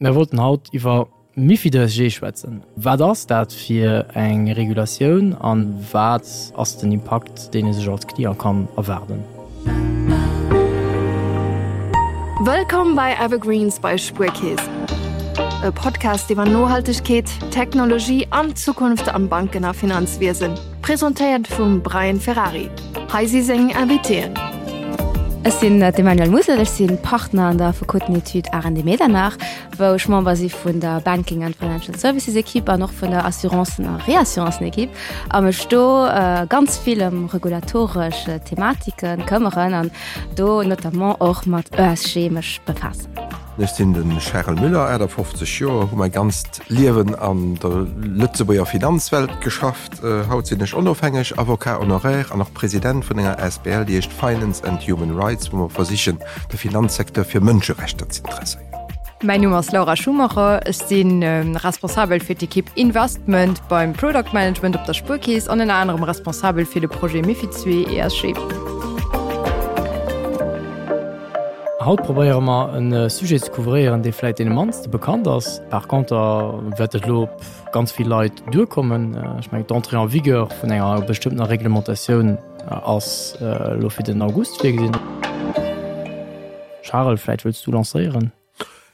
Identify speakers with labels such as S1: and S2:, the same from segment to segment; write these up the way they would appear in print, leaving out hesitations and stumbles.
S1: Mir wollten haut iwwer MiFID ESG schwätzen. Wat ass dat fir eng Regulatioun an wat ass den Impakt, deen ee sech als Client kann erwaarden?
S2: Wëllkomm bei Evergreens bei Spuerkeess, e Podcast iwwer Nohaltegkeet, Technologie an d'Zukunft am Banken a Finanzwiesen. Presentéiert vum Brian Ferrari. Hei si seng Invitéen.
S3: Ech sinn d'Emmanuelle Musel, ech si Partner an der Affekotenetude Arendt Medernach, wou ech Member si vun der Banking and Financial Services Equipe an och vun der Assurancen a Reassurancen Equipe a mech do ganz vill ëm regulatoresch Thematike këmmeren an do notamment och mat ESG mech befaassen.
S4: Ech sinn de Charel Müller, 58 Joer, hu mäi ganzt Liewen an der Lëtzebuerger Finanzwelt geschafft. Haut sinn ech onofhängeg Avocat honoraire an och President vun enger asbl, déi heescht Finance and Human Rights, wou mer versichen, de Finanzsecteur fir Mënscherechter ze interesséieren.
S5: Mäin Numm ass Laura Schumacher, ech si responsabel fir d'Ekipp Investment beim Product Management op der Spuerkeess an ënner anerem responsabel fir de Projet MiFID II ESG.
S1: Haut probéiere mer e Sujet ze couvréieren, dee vläit deene mannste bekannt ass. Par conter wäert et elo op ganz vill Leit duerkommen. Ech mengen, d'Entrée en vigueur vun enger bestëmmtener Reglementatioun ass elo fir den August virgesinn. Charel, vläit wëlls du lancéieren?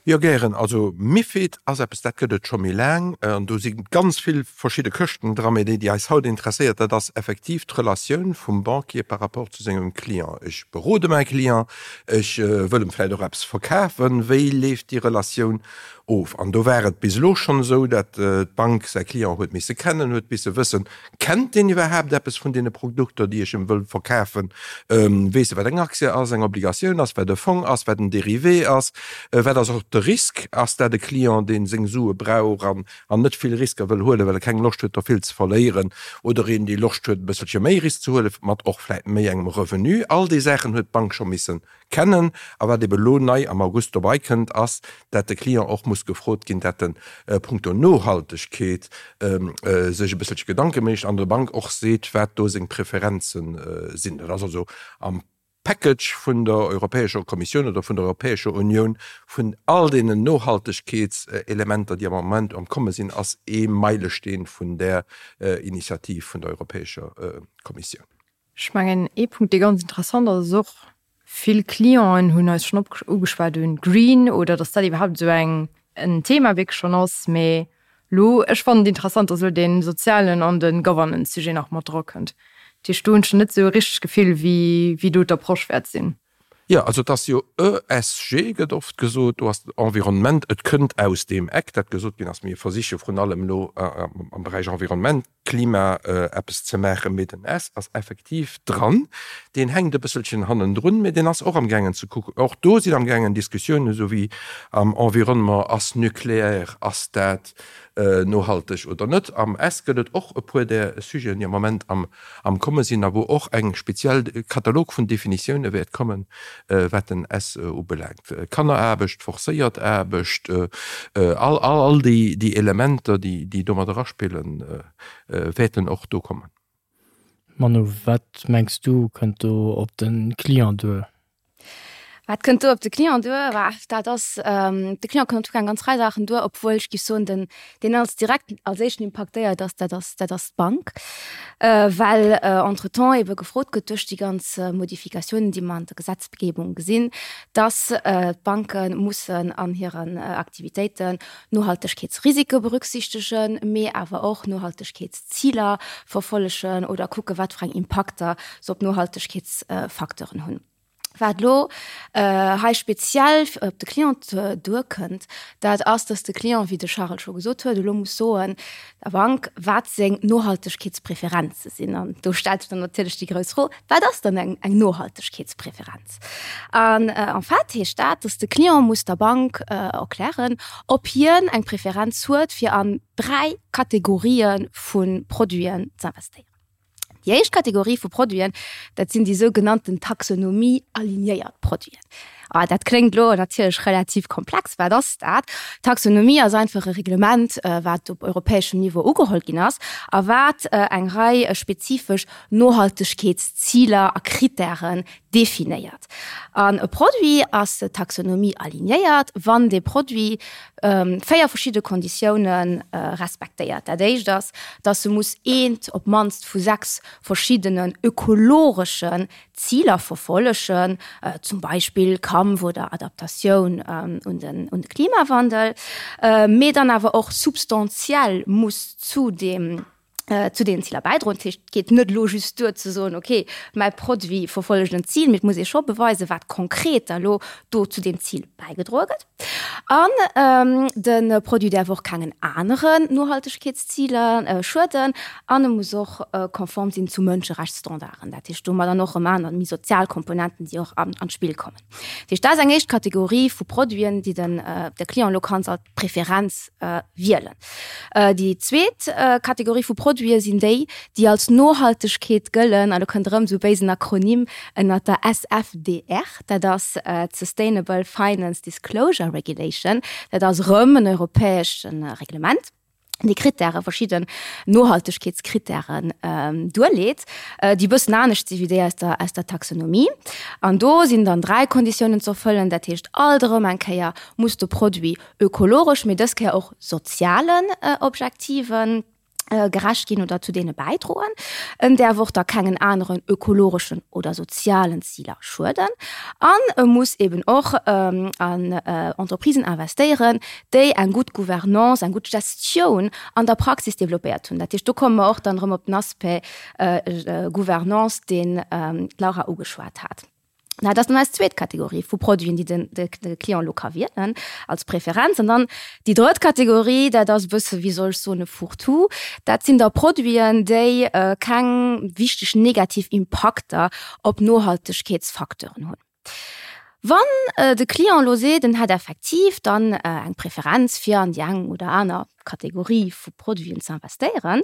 S4: Jo, gären. Also MiFID ass eppes, dat gëtt et scho méi laang an do si ganz vill verschidde Këschten dran. Mee déi, déi eis haut interesséiert, dat ass effektiv d'Relatioun vum Banquier par rapport zu sengem Client. Ech berode mäi Client, ech wëll em vläicht och eppes verkafen. Wéi leeft déi Relatioun of? An do war et bis elo schonn esou, dat d'Bank säi Client huet misse kennen, huet misse wëssen, Kennt deen iwwerhaapt eppes vun deene Produkter, déi ech em wëll verkafen? Weess e, wat eng Aktie ass, eng Obligatioun ass, wat e Fong ass, wat en Dérivé ass? Wat ass och de Risk? Ass dat e Client, dee seng Sue brauch an net vill Risker wëll huelen, well e keng Loscht huet, der vill ze verléieren? Oder een, dee Loscht huet, e bësselche méi Risk ze huelen, mat och vläicht méi engem Revenu? All déi Saachen huet d'Bank scho missen Kennen. A wat ebe lo nei am August dobei kënnt, ass, dat de Client och muss gefrot ginn, dat en punkto Nohaltegkeet sech e bësselche Gedanke mécht an der Bank och seet, wat do seng Preferenze sinn. Dat ass also am Package vun der Europäescher Kommissioun oder vun der Europäescher Unioun, vun all deenen Nohaltegkeetselementer, déi am Moment am Komme sinn, ass ee Meilesteen vun där Initiativ vun der Europäescher Kommissioun.
S5: Ech mengen, ee Punkt, dee ganz interessant ass, ass och, vill Clienten hunn eis schonn ugeschwat un Green oder datt dat iwwerhaapt esou eng en Thema wierklech schonn ass. Mee elo, ech fannen et interessant, datt elo dee sozialen an de Governance-Sujet nach mat drakënnt. Dat heescht, do hunn ech net esou e richtegt Gefill, wéi wéi do d'Approche wäert sinn.
S4: Jo, also et ass jo ESG gëtt oft gesot, do ass Environnement, et kënnt aus deem Eck, dat gesot ginn ass, mir versiche vrun allem elo am Beräich Environnement, Klima eppes ze maachen, mee den S ass effektiv dran, deen hänkt e bësselchen hannendrun, mee deen ass och amgaangen ze kucken. Och do sinn amgaangen Diskussiounen, esou wéi am Environnement, ass Nucléaire, ass dat nohalteg oder net. Am S gëtt et och e puer där Sujeten, déi am Moment am am komme sinn a wou och eng speziell Katalog vun Definitioune wäert kommen, wat den S ubelaangt, Kanneraarbecht, forcéiert Aarbecht, all all déi Elementer, déi domat eraspillen, wäerten och do kommen.
S1: Manu, wat mengs du, kënnt do op de Client duer?
S3: Wat kënnt do op de Client duer? Bah, dat ass, de Client kënnt en tout cas eng ganz Rei Saachen duer, obwuel ech géif soen, den, deen als direkt als éischten impaktéiert ass, dat ass, dat ass d'Bank, well entretemps ebe gefrot gëtt duerch déi ganz Modifikatiounen, déi mer an der Gesetzgebung gesinn, dass d'Banke mussen an hiren Aktivitéiten Nohaltegkeetsrisike berücksichtegen, mee awer och Nohaltegkeetsziler verfollegen oder kucke wat fir eng Impakter se op Nohaltegkeetsfacteuren hunn. Wat elo hei speziell op de Client duerkënnt, dat ass, dass de Client, wéi de Charel scho gesot huet, elo muss soen der Bank, wat seng Nohaltegkeetspräferenze sinn. An do stellt sech dann natierlech déi grouss Fro, Wat ass dann eng Nohaltegkeetspräferenz? An en fait heescht dat, dass de Client muss der Bank erklären, ob hien eng Preferenz huet, fir an 3 Kategorië vu Produiten z'investéieren. Déi éischt Kategorie vu Produiten, dat sinn déi sougenannten Taxonomie-alignéiert Produiten. Ah, dat kléngt elo natierlech relativ komplex. Wat ass dat? D'Taxonomie ass einfach e Reglement, wat op europäeschem Niveau ugeholl ginn ass a wat eng Rei spezifesch Nohaltegkeetsziler a Krittären definéiert. An e Produit ass Taxonomie alignéiert, wann dee Produit 4 verschidde Konditioune respektéiert. Dat éischt ass, dass e muss eent op d'mannst vu 6 verschiddenen ökologeschen Ziler verfollegen, zum Beispill Kampf oder Adaptatioun un de Klimawandel, mee dann awer och substantiell muss zu deem zu deenen Ziler bäidroen. Dat heescht, et geet net elo just duer ze soen, okay, mäi Produit verfollegt en Zil, mee et muss ee scho beweisen, wat konkret da lo do zu deem Zil bäigedroe gëtt. An de Produit däerf och kengen aneren Nohaltegkeetsziler schueden an e muss och konform sinn zu Mënscherechtsstandarden. Dat heescht, do hu mer dann och erëm aner méi sozial Komponenten, déi och an d'Spill kommen. Dat heescht, dat ass eng éischt Kategorie vu Produiten, déi den de Client elo kann als Preferenz wielen. Déi zweet Kategorie vu Produite sinn déi, déi als Nohaltegkeet gëllen, an do kënnt erëm esou e béisen Akronym ënnert der SFDR, dat ass d'Sustainable Finance Disclosure Regulation, dat ass erëm en europäescht Reglement, déi Krittäre, verschidden Nohaltegkeetskrittären duerleet, déi e bëssen anescht si wéi déi aus der, aus der Taxonomie. An do sinn dann 3 Konditiounen ze erfëllen, dat heescht alt erëm eng Kéier muss de Produit ökologesch, mee dës Kéier och sozialen Objektiven gerecht ginn oder zu deene bäidroen. En däerf och da kengen aneren ökologeschen oder sozialen Ziler schueden. An e muss eben och an Entreprisen investéieren, déi eng gutt Gouvernance, eng gutt Gestioun an der Praxis developpéiert hunn. Dat heescht, do komme mer och dann erëm op den Aspect Gouvernance, deen d'Laura ugeschwat hat. Dat ass dann eis zweet Kategorie vu Produiten, déi den, de, de Client elo ka wielen als Preferenz. An dann déi drëtt Kategorie, dat ass e bësse, wéi soll ech soen, e Fourre-tout. Dat sinn da Produiten, déi keng wichteg negativ Impakter op Nohaltegkeetsfacteuren hunn. Wann de Client elo seet, en hätt effektiv dann eng Preferenz fir an déi eng oder aner Kategorie vu Produiten ze investéieren,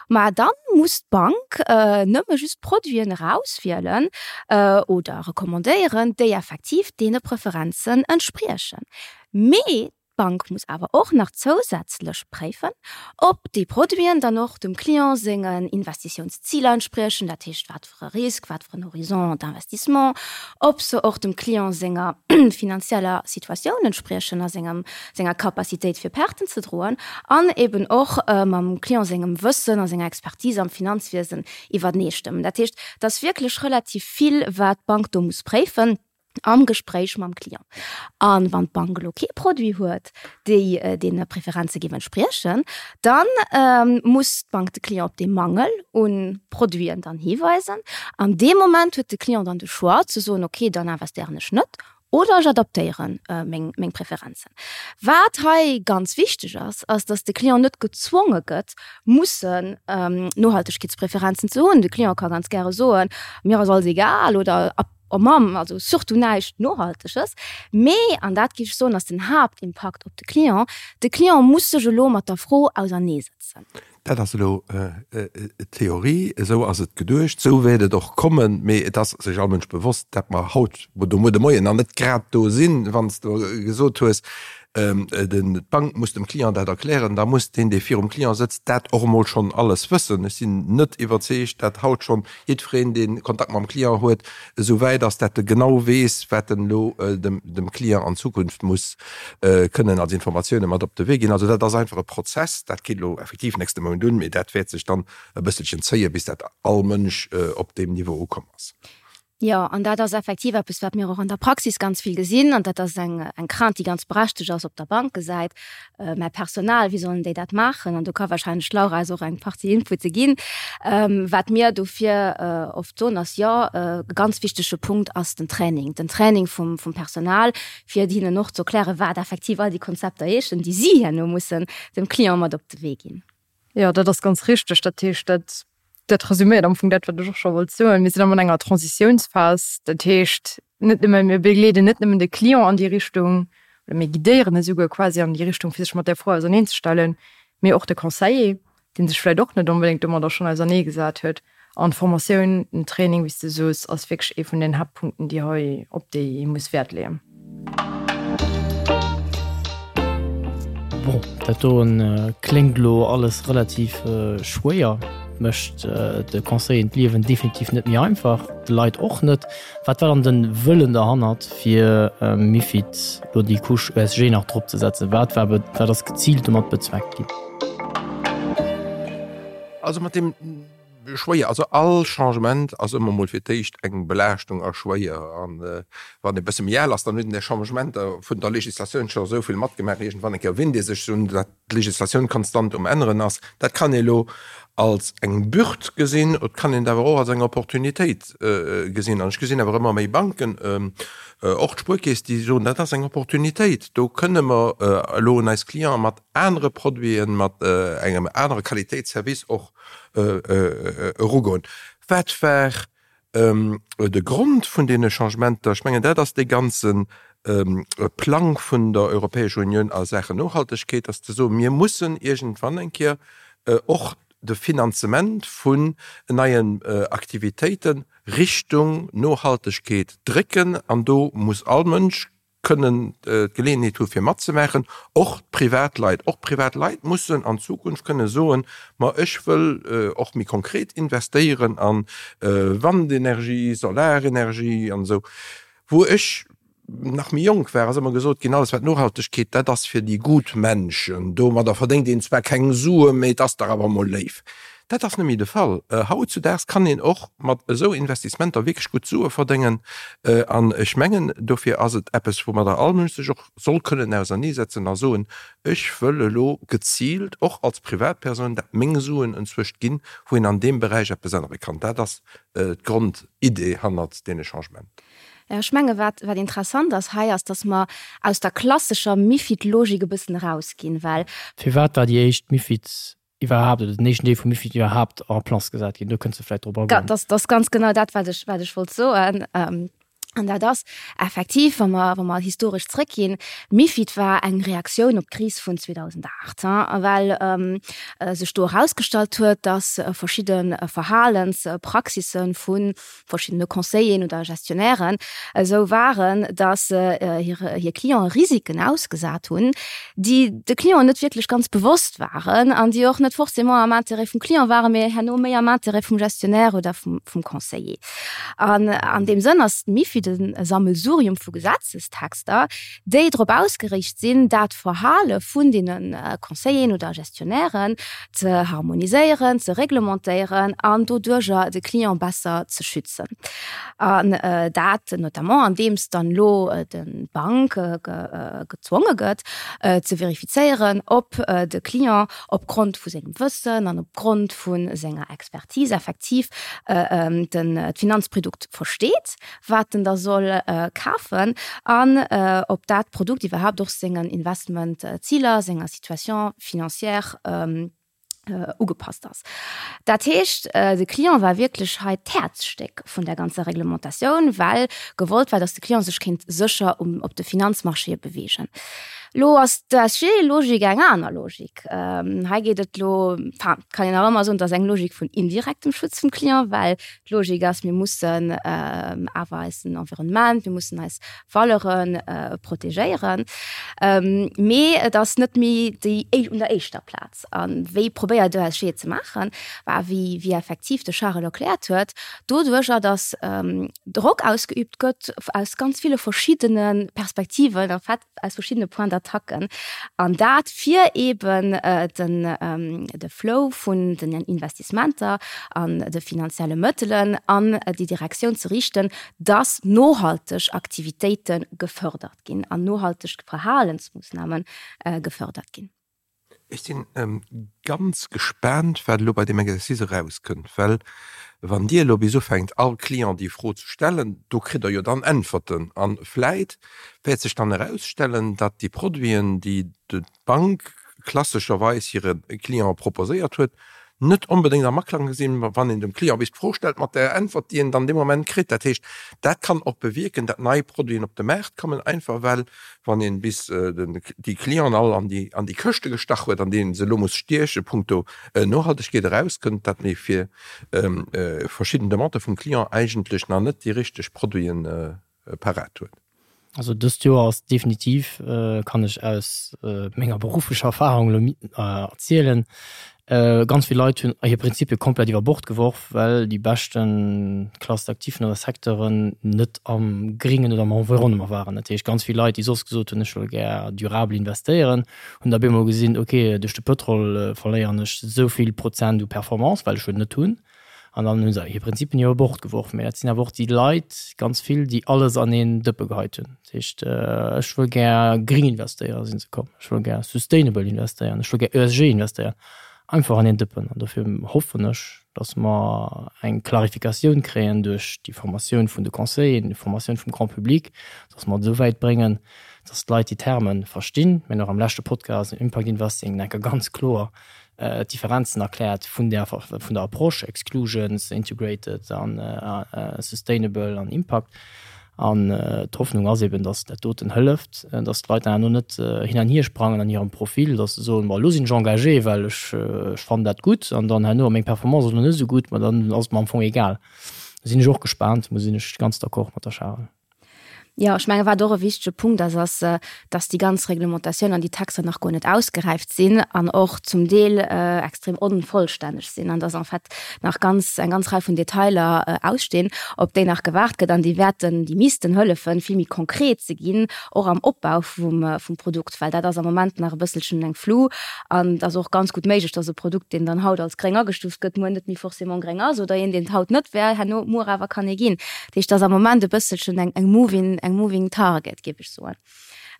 S3: ma da muss d'Bank nëmme just Produiten erauswielen oder recommandéieren, déi effektiv deene Preferenzen entspriechen. Mee d'Bank muss awer och nach zousätzlech préifen, ob déi Produiten dann och dem Client sengen Investitiounsziler entspriechen, dat heescht wat fir e Risk, wat fir en Horizon d'investissement, ob se och dem Client senger finanzieller Situatioun entspriechen a sengem, senger Capacitéit fir Perten ze droen an eben och mam Client sengem Wëssen a senger Expertise am Finanzwiesen iwwerneestëmmen. Dat heescht, et ass wierklech relativ vill, wat d'Bank do muss préifen. am Gespréich mam Client. A wann d'Bank elo kee Produit huet, déi deene Preferenze géif entspriechen, da muss d'Bank de Client op dee Mangel u Produiten dann hiweisen. An deem Moment huet de Client dann de Choix ze soen, okay, dann investéieren ech net oder ech adaptéiere meng Preferenzen. Wat hei ganz wichteg ass, ass, datt de Client net gezwonge gëtt, mussen Nohaltegkeetspreferenzen ze hunn. De Client ka ganz gäre soen, mir ass alles egal oder Oh Mamm, also surtout näischt Nohalteges. Mee, an dat géif ech soen, ass den Haaptimpakt op de Client, de Client muss sech elo mat der Fro auserneesetzen.
S4: Dat ass elo d'Theorie, esou ass et geduecht, esou wäert et och kommen. Mee et ass sech all Mënsch bewosst, dat mer haut oder muer de Moien nach net grad do sinn. Wann s de gesot hues, d'Bank muss dem Client dat erklären, da muss deen, dee virum Client sëtzt, dat och emol schonn alles wëssen. Ech sinn net iwwerzeegt, dat haut schonn jiddwereen, dee Kontakt mam Client huet, esou wäit ass, dat e genau weess, wat en elo dem Client an Zukunft muss kënnen als Informatioune mat op de Wee ginn. Also dat ass einfach e Prozess, dat geet elo effektiv nächste Mount un, mee dat wäert sech dann e bësselchen zéien, bis dat all Mënsch op deem Niveau ukomm ass.
S3: Jo, an dat ass effektiv eppes, wat mir och an der Praxis ganz vill gesinn. An dat ass eng, eng Crainte, déi ganz berechtegt ass op der Bankesäit. Mä Personal, wéi sollen déi dat maachen? An do ka wahrscheinlech d'Laura eis och eng Partie Inpute ginn. Wat mir dofir oft soen, ass, jo, e ganz wichtege Punkt ass den Training, den Training vum, vum Personal, fir hinnen och ze erklären, wat effektiv all déi Konzepter heeschen, déi si herno mussen dem Client mat op de Wee ginn.
S5: Jo, dat ass ganz richteg. Dat heescht, dat, dat resüméiert am Fong dat, wat ech och scho wollt soen. Mir sinn am an enger Transitiounsphas. Dat heescht, net nëmme, mir begleeden net nëmmen de Client an déi Richtung oder mir guidéieren e souguer quasi an déi Richtung, fir sech mat där Fro auserneenzestellen, mee och de Conseiller, dee sech vläicht och net onbedéngt domadder schonn auserneegesat huet. An d'Formatioun, den Training, wéi s de soos, ass wierklech ee vun den Haaptpunkten, déi hei, op déi ee muss Wäert leeën.
S1: Bon, dat doen kléngt elo alles relativ schwéier, mécht de Conseilleren d'Liewen definitiv net méi einfach, de Leit och net. Wat war dann den Wëllen derhannert fir MiFID lo déi Couche ESG nach drop ze setzen? Wat war wat ass geziilt domat bezweckt ginn?
S4: Also mat deem schwéier, also all Changement ass ëmmer mol fir d'éischt eng Belaaschtung a schwéier. An wann ee bësse méi al ass, dann huet een déi Changementer vun der Legislatioun scho esou vill matgemaach, iergendwann eng Kéier winnt ee sech un dat d'Legislatioun konstant um änneren ass. Dat kann ee lo als eng Bürd gesinn, et kann een et awer och als eng Opportunitéit gesinn. An ech gesinn awer ëmmer méi Banken, och d'Spuerkeess, déi soen, dat ass eng Opportunitéit, do kënne mer elo un eis Clienten mat anere Produiten, mat engem anere Qualitéitsservice och erugoen. Wat war De Grond vun deene Changementer, ech mengen, dat ass dee ganze Plang vun der Europäescher Unioun a Saachen Nohaltegkeet, ass ze soen, mir mussen iergendwann eng Kéier och de Finanzement vun neien Aktivitéite Richtung Nohaltegkeet drécken. An do muss all Mënsch kënnen d'Geleeënheet hu fir matzemaachen, och d'Privatleit. Och d'Privatleit mussen an Zukunft kënne soen, ma ech wëll och méi konkret investéieren a Wandenergie, Solarenergie an esou. Wou ech nach méi jonk war, ass ëmmer gesot ginn, alles wat Nohaltegkeet, dat ass fir déi gut Menschen, domadder verdéngt een zwar keng Sue, mee et ass dach awer emol léif. Dat ass net méi de Fall. Hautzudaags kann een och mat esou Investissementer wierklech gutt Sue verdéngen. An ech mengen, dofir ass et eppes, woumadder all Mënsch sech och soll kënnen auserneesetzen a soen, Ech wëll elo geziilt och als Privatpersoun dat meng Suen enzwëscht ginn, wou een an deem Beräich eppes ännere kann. Dat ass d'Grondidee hannert deene Changement.
S3: Ech menge wat wat interessant ass hei ass, datt mer aus der klassescher MiFID-Logik e bëssen erausginn, well.
S1: Firwat war déi éischt MiFID iwwerhaapt, oder den éischten Deel vum MiFID iwwerhaapt en place gesat ginn. Do kënns de vläicht drop agoen.
S3: Dat ass ganz genau dat, wat ech, wat ech wollt soen. An dat ass effektiv, wa mer, wa mer historesch zrëckginn, MiFID war eng Reaktioun op d'Kris vun 2008, well sech do erausgestallt huet, dass verschidde Verhalenspraxisse vu verschiddene Conseilleren oder Gestionnairen esou waren, datt se hir Clienten Risiken ausgesat hunn, déi de Clienten net wierklech ganz bewosst waren an déi och net forcément am Intérêt vum Client waren, mee herno méi am Intérêt vum Gestionnaire oder vum Conseiller. An an deem Sënn ass d'MiFID e Sammelsurium vu Gesetzestexter, déi drop ausgeriicht sinn, dat Verhale vun deene Conseilleren oder Gestionnairen ze harmoniséieren, ze reglementéieren an doduerjer de Client besser ze schützen. An dat notamment andeems dann elo d'Bank gezwonge gëtt ze verifizéieren, ob de Client opgrond vu sengem Wëssen an opgrond vu senger Expertise effektiv d'Finanzprodukt versteet, wat en da soll kafen an ob dat Produkt iwwerhaapt och sengen Investmentziler, senger Situation financière ugepasst ass. Dat heescht, de Client war wierklech hei d'Häerzstéck vun der ganzer Reglementatioun, well gewollt war, datt de Client sech kéint sécher op de Finanzmarchéë beweegen. Lo ass d'ESG-Logik eng aner Logik. Hei geet et lo, enfin, kann een nach ëmmer soen, et ass eng Logik vun indirektem Schutz vum Client, well D'Logik ass, mir mussen awer eisen Environnement, mir mussen eis Valeure protegéieren. Mee et ass net méi déi un der éischter Plaz. A wéi probéiert d'ESG et ze maachen? Bah, wéi wéi effektiv de Charel erkläert huet, doduercher, datt Drock ausgeübt gëtt aus ganz ville verschiddene Perspektiven, en fait aus verschiddene Points d'attaque an dat fir eben den de Flow vun den Investissementer an de finanzielle Mëttelen an déi Direktioun ze riichten, dass nohalteg Aktivitéite gefördert ginn an nohalteg Verhalensmoossname gefördert ginn.
S4: Ech sinn ganz gespaant, wat elo bei deem Exercice erauskënnt, well wann Dir elo bis ufänkt, all Client déi Fro ze stellen, do kritt Der jo dann Äntwerten. A vläit wäert sech dann erausstellen, datt déi Produiten, déi d'Bank klassescherweis hire Cliente proposéiert huet, net onbedéngt am Aklang sinn, wann een dem Client bis d'Fro stellt, mat der Äntwert, déi en dann dee Moment kritt. Dat heescht, dat kann och bewierken, datt nei Produiten op de Maart kommen, einfach well, wann een bis déi Clienten all an déi an déi Këschte gestach huet, an deenen se elo muss stieche punkto Nohaltegkeet, erauskënnt, datt mee fir verschidden Demandë vum Client eigentlech nach net déi richteg Produiten parat huet.
S1: Also dëst Joer ass definitiv, kann ech aus menger berufflecher Erfahrung elo erzielen, ganz vill Leit hunn hir Prinzipie komplett iwwer Bord geworf, well déi beschte Classes d'actifs oder Secteuren net am Gringen oder am Environnement waren. Dat heescht, ganz vill Leit, déi soss gesot hunn, ech wëll gär durabel investéieren, hunn da bemol gesinn, ok, duerch de Pëtrol verléieren ech esou vill Prozent u Performance, well ech en net hunn. An dann hu se hir Prinzipien iwwer Bord geworf. Mä dat sinn awer och déi Leit, ganz vill, déi alles an een Dëppe geheit hunn. Dat heescht, ech wëll gär gring investéieren, si se komm. Ech wëll gär sustainable investéieren, ech wëll gär ESG investéieren. Einfach an een Dëppen. An dofir hoffen ech, datt mer eng Klarifikatioun kréien duerch déi Formatioun vun de Conseilleren, déi Formatioun vum Grand public, datt mer et esou wäit bréngen, datt d'Leit déi Terme verstinn. Mir hunn och am leschte Podcast, Impact Investing, enker ganz kloer d'Differenzen erkläert vun der vun der Approche, Exclusions, Integrated an Sustainable an Impact. An d'Hoffnung ass eben, datt dat doten hëlleft, datt d'Leit dann herno net hin an hier sprangen an hirem Profil, datt se soen, bon elo sinn ech engagé, well ech ech fannen dat gutt an dann herno meng Performance ass elo net esou gutt, ma dann ass et mer am Fong egal. Do sinn ech och gespaant, do sinn ech ganz d'accord mat der Charel.
S3: Jo, ech menge wat och e wichtege Punkt ass, ass, dass déi ganz Reglementatioun an déi Texter nach guer net ausgeräift sinn an och zum Deel extrem onvollstänneg sinn an dass en fait nach ganz, eng ganz Rei vun Detailer ausstinn, op déi nach gewaart gëtt an déi wäerten, déi missten hëllefen, vill méi konkret ze ginn, och am Opbau vum, vum Produkt, well dat ass am Moment nach e bësselchen eng Flou an et ass och ganz gutt méiglech, dass e Produkt, deen dann haut als gréng agestuuft gëtt, muer net méi forcément gréng ass oder een, deen et haut net wär, herno muer awer kann ee ginn. Dat heescht, et ass am Moment e bësselchen eng, eng moving, eng moving target, géif ech soen.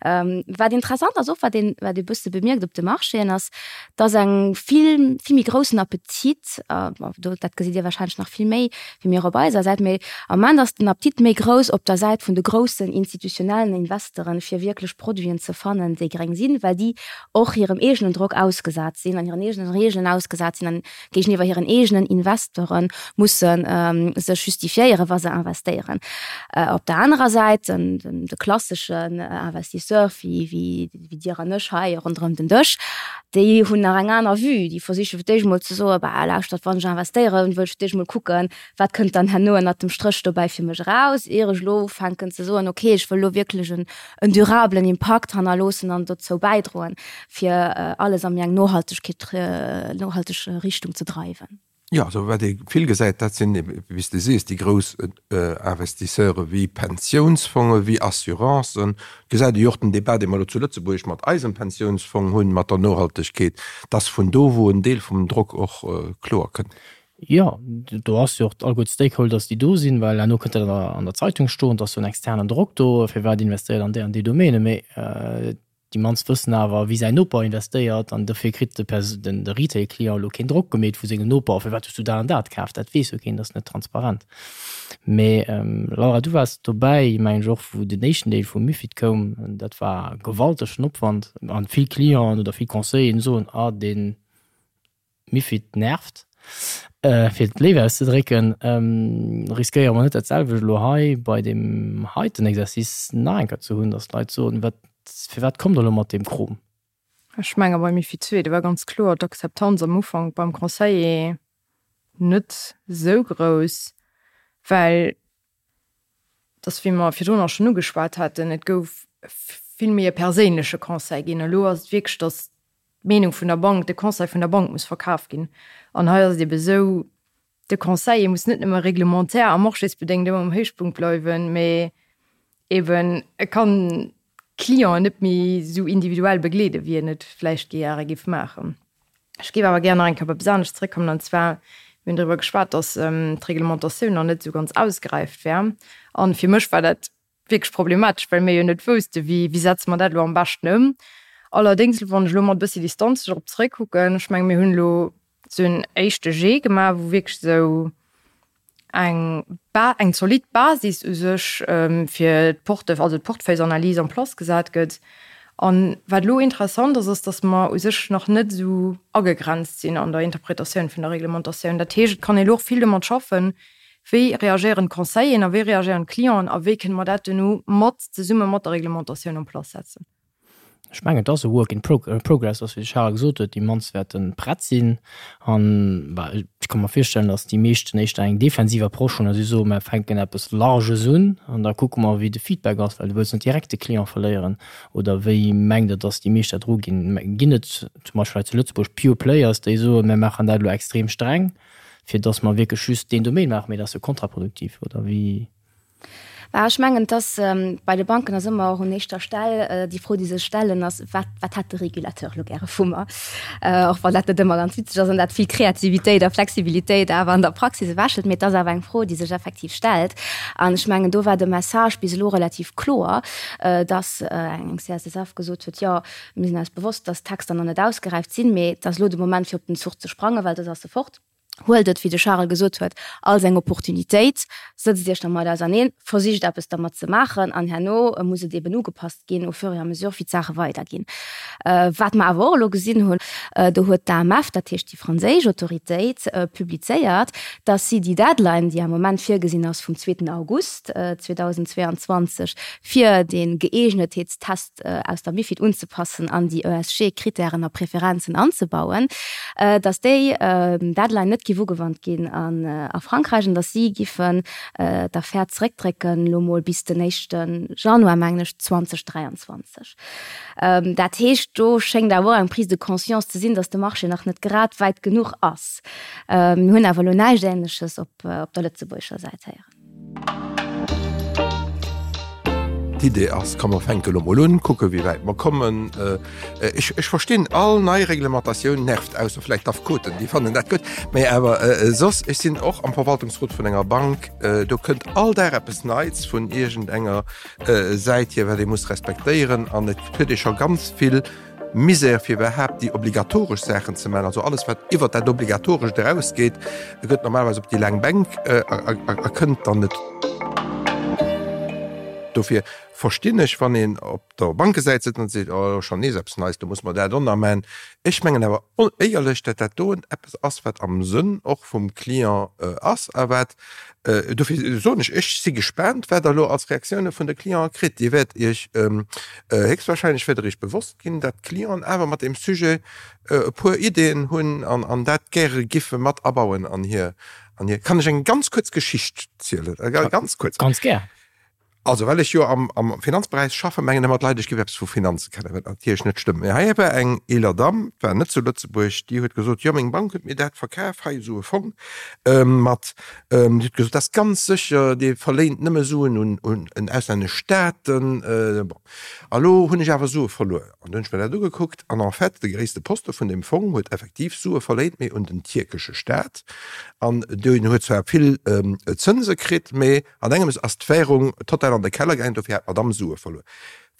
S3: Wat interessant ass och, wat een, wat ee bësse bemierkt op de Marchéen, ass, dass eng vill, vill méi groussen Appetit, bon, do, dat gesitt Dir wahrscheinlech nach vill méi wéi mir op eiser Säit, mee am Moment ass den Appetit méi grouss op der Säit vun de groussen institutionellen Investoren, fir wierklech Produiten ze fannen, déi gréng sinn, well déi och hirem eegenen Drock ausgesat sinn an hiren eegenen Regeln ausgesat sinn an géigeniwwer hiren eegenen Investore musse sech justifiéieren, wa se investéieren. Op der anerer Säit, de klasseschen Investisseur wéi Dir an ech hei ronderëm den Dësch, déi hunn nach eng aner Vue. Déi versiche fir d'éischt emol ze soen, Bah, lauschtert, wann ech investéieren, wëll ech fir d'éischt emol kucken, wat kënnt dann herno ënnert dem Stréch dobäi fir mech eraus, ier ech elo ufänken ze soen, okay, ech wëll elo wierklech en durablen Impakt hannerloossen an dozou bäidroen. fir alles a méi eng Nohaltegkeet, nohalteg Richtung ze dreiwen.
S4: Jo, also wat ee vill gesäit, dat sinn, wéi s de sees, déi grouss Investisseure wéi Pensiounsfonge, wéi Assurancen. Et gesäit ee jo och den Débat, dee mer elo zu Lëtzebuerg mat eisem Pensiounsfong hunn, mat der Nohaltegkeet, dass vun do, wou en Deel vum Drock och kloer kënnt.
S1: Jo, do ass jo och alleguer d'Stakeholders, déi do sinn, well herno kënnt dat an der Zeitung stoen, et ass jo en externen Drock do, firwat investéiert an déi an déi Domäne. Mee Déi mannst wëssen awer, wéi säin Noper investéiert an dofir kritt de de Retail-Client elo keen Drock gemeet vu sengem Noper, firwat hues du dat an dat kaf? Dat weess jo keen, dat ass net transparent. Mee Laura, du waars dobäi, mengen ech och, wou den éischten Deel vum MiFID koum. Dat war gewaltegen Opwand an vill Clienten oder vill Conseilleren soen, ah deen MiFID nervt, fir et léif auszedrécken. Riskéiere mer net dat selwecht elo hei bei deem heiten Exercice nach eng Kéier ze hunn, datt d'Leit soen, wat, firwat kommt Der elo mat deem Krom?
S5: Ech menge bei MiFID ii, do war ganz kloer d'Akzeptanz am Ufank beim Conseiller net esou grouss, well dass, wéi mer virdrun och schonn ugeschwat haten, et gouf vill méi e perséinleche Conseil ginn. Elo ass et wierklech, dass d'Meenung vun der Bank, de Conseil vun der Bank muss verkaf ginn. An hei ass et ebe esou, de Conseiller muss net nëmme reglementaire a marchésbedéngt ëmmer um Héichpunkt bleiwen, mee eben e kann d'Clienten net méi esou individuell begleeden, wéi en et vläicht gäre géif maachen. Ech géif awer gär nach eng Kéier op eppes anescht zrëckkommen, an zwar, mir hunn driwwer geschwat, dass d'Reglementatioun nach net esou ganz ausgeräift wär. A fir mech war dat wierklech problematesch, well mir jo net woussten, wéi, wéi setze mer dat elo am beschten ëm. Allerdéngs, wann ech elo mat e bëssi Distanz dorop zrëckkucken, ech menge mir hunn elo esou en éischte Jet gemaach, wou wierklech esou eng Ba eng zolidd Basis u sech fir d'Porte also d'Portefeuillesanalys en place gesat gëtt. An wat elo interessant ass, ass, datt mer u sech nach net esou agegrenzt sinn an der Interpretatioun vun der Reglementatioun. Dat heescht, et kann ee elo och vill domat schaffen, Wéi reagéieren d'Conseilleren a wéi reagéieren d'Clienten a wéi kënne mer dat duerno mat zesumme mat der Reglementatioun en place setzen?
S1: Ech mengen, et ass e Work in progress, ass wéi de Charel gesot huet, déi mannst wäerte prett sinn. An ech ka mer virstellen, datt déi meeschten éischter eng defensiv Approche hunn a si soen, mer fänken eppes Larges un an da kucke mer, wéi de Feedback ass, well du wëlls net direkt de Client verléieren. Oder wéi mengt Der, datt déi meescht dat eruginn? Ginn et zum Beispill hei zu Lëtzebuerg Pure Players, déi soen, mer maachen dat elo extrem streng, fir datt mer wierklech just deen Domaine maachen, mee dat ass jo kontraproduktiv, oder wéi?
S3: Bah, ech mengen, dass bei de Banken ass ëmmer och un éischter Stell déi Fro, déi sech stellen, ass, Wat, wat hätt de Régulateur elo gäre vu mer? Och wann dat net ëmmer ganz witzeg ass an dat vill Kreativitéit a Flexibilitéit awer an der Praxis ewechhëlt. Mee et ass awer eng Fro, déi sech effektiv stellt. An ech mengen, do war de Message bis elo relativ kloer, dass eng CSSF gesot huet, Jo, mir sinn eis bewosst, dass d'Texter nach net ausgeräift sinn, mee et ass elo de Moment, fir op den Zuch ze sprangen, well soss ass e fort. Huelt et, wéi de Charel gesot huet, als eng Opportunitéit, sëtzt Iech dermat auserneen, versicht eppes dermat ze maachen an herno muss et eben ugepasst ginn au fur et à mesure, wéi d'Saache weiderginn. Wat mer awer och elo gesinn hunn, do huet d'AMF, dat heescht déi franséisch Autoritéit, publizéiert, dass si déi Deadline, déi am Moment virgesinn ass vum zweeten August 2022, fir dee Gëeegnetheetstest, aus der MiFID unzepassen an déi ESG-Krittären a Preferenzen anzebauen, datt déi Deadline net giff ugewannt ginn a Frankräich an datt si giffen d'Affär zeréckdrécken, elo mol bis den éischte Januar, mengen ech, 2023. Dat heescht, do schéngt awer och eng Prise de conscience ze sinn, datt de Marché nach net grad wäit genuch ass. Mir hunn awer elo näischt Änleches op der lëtzebuergescher Säit héieren.
S4: D'Idee ass, komm mer fänke lo mol un, kucke wéi wäit mer kommen. Ech, ech verstinn, all nei Reglementatioun nervt, ausser vläicht d'Affekoten, déi fannen dat gutt. Mä awer soss, ech sinn och am Verwaltungsrot vun enger Bank, do kënnt all Dag eppes Neits vun iergendenger Säit hier, wat ee muss respektéieren an et huet ee scho ganz vill Misär fir iwwerhaapt déi obligatoresch Saachen ze maachen, also alles wat iwwert dat Obligatorescht erausgeet, gëtt normalerweis op déi laang Bänk a kënnt dann net. Dofir verstinn ech, wann een op der Bankesäit sëtzt an seet, oh schonn nees eppes Neits, do muss mer dat och nach maachen. Ech mengen awer éierlech, datt dat doen eppes ass, wat am Sënn och vum Client ass a wat, dofir soen ech, ech si gespaant, wat Der elo als Reaktioune vun de Clientë kritt. Dir wäert Iech Héchstwahrscheinlech wäert Der Iech bewosst ginn, dat d'Clienten awer mat deem Sujet e puer Ideeën hunn an dat gäre giffe mat abauen an hir, an hir. Kann ech eng ganz kuerz Geschicht zielen? Ganz kuerz.
S1: Ganz gär.
S4: Also, well ech jo am, am Finanzberäich schaffen, mengen ëmmer d'Leit, ech géif eppes vu Finanze kennen, wat natierlech net stëmmt. Mee hei war eng eeler Damm, war net zu Lëtzebuerg, déi huet gesot, jo, meng Bank huet mir dat verkaf, hei esou e Fong mat, Déi huet gesot, dat ass ganz sécher, dee verléint nëmme Suen un un auslännesch Staaten. Bon, a lo hunn ech awer Sue verluer. An du hunn ech mir dat ugekuckt an en fait, de gréisste Poste vun deem Fong huet effektiv Sue verléint, mee un den tierkesche Staat. An deen huet zwar vill Zënse kritt, mee an engems ass d'Währung total an de Keller gaangen, dofir hat d'Madamm Sue verluer.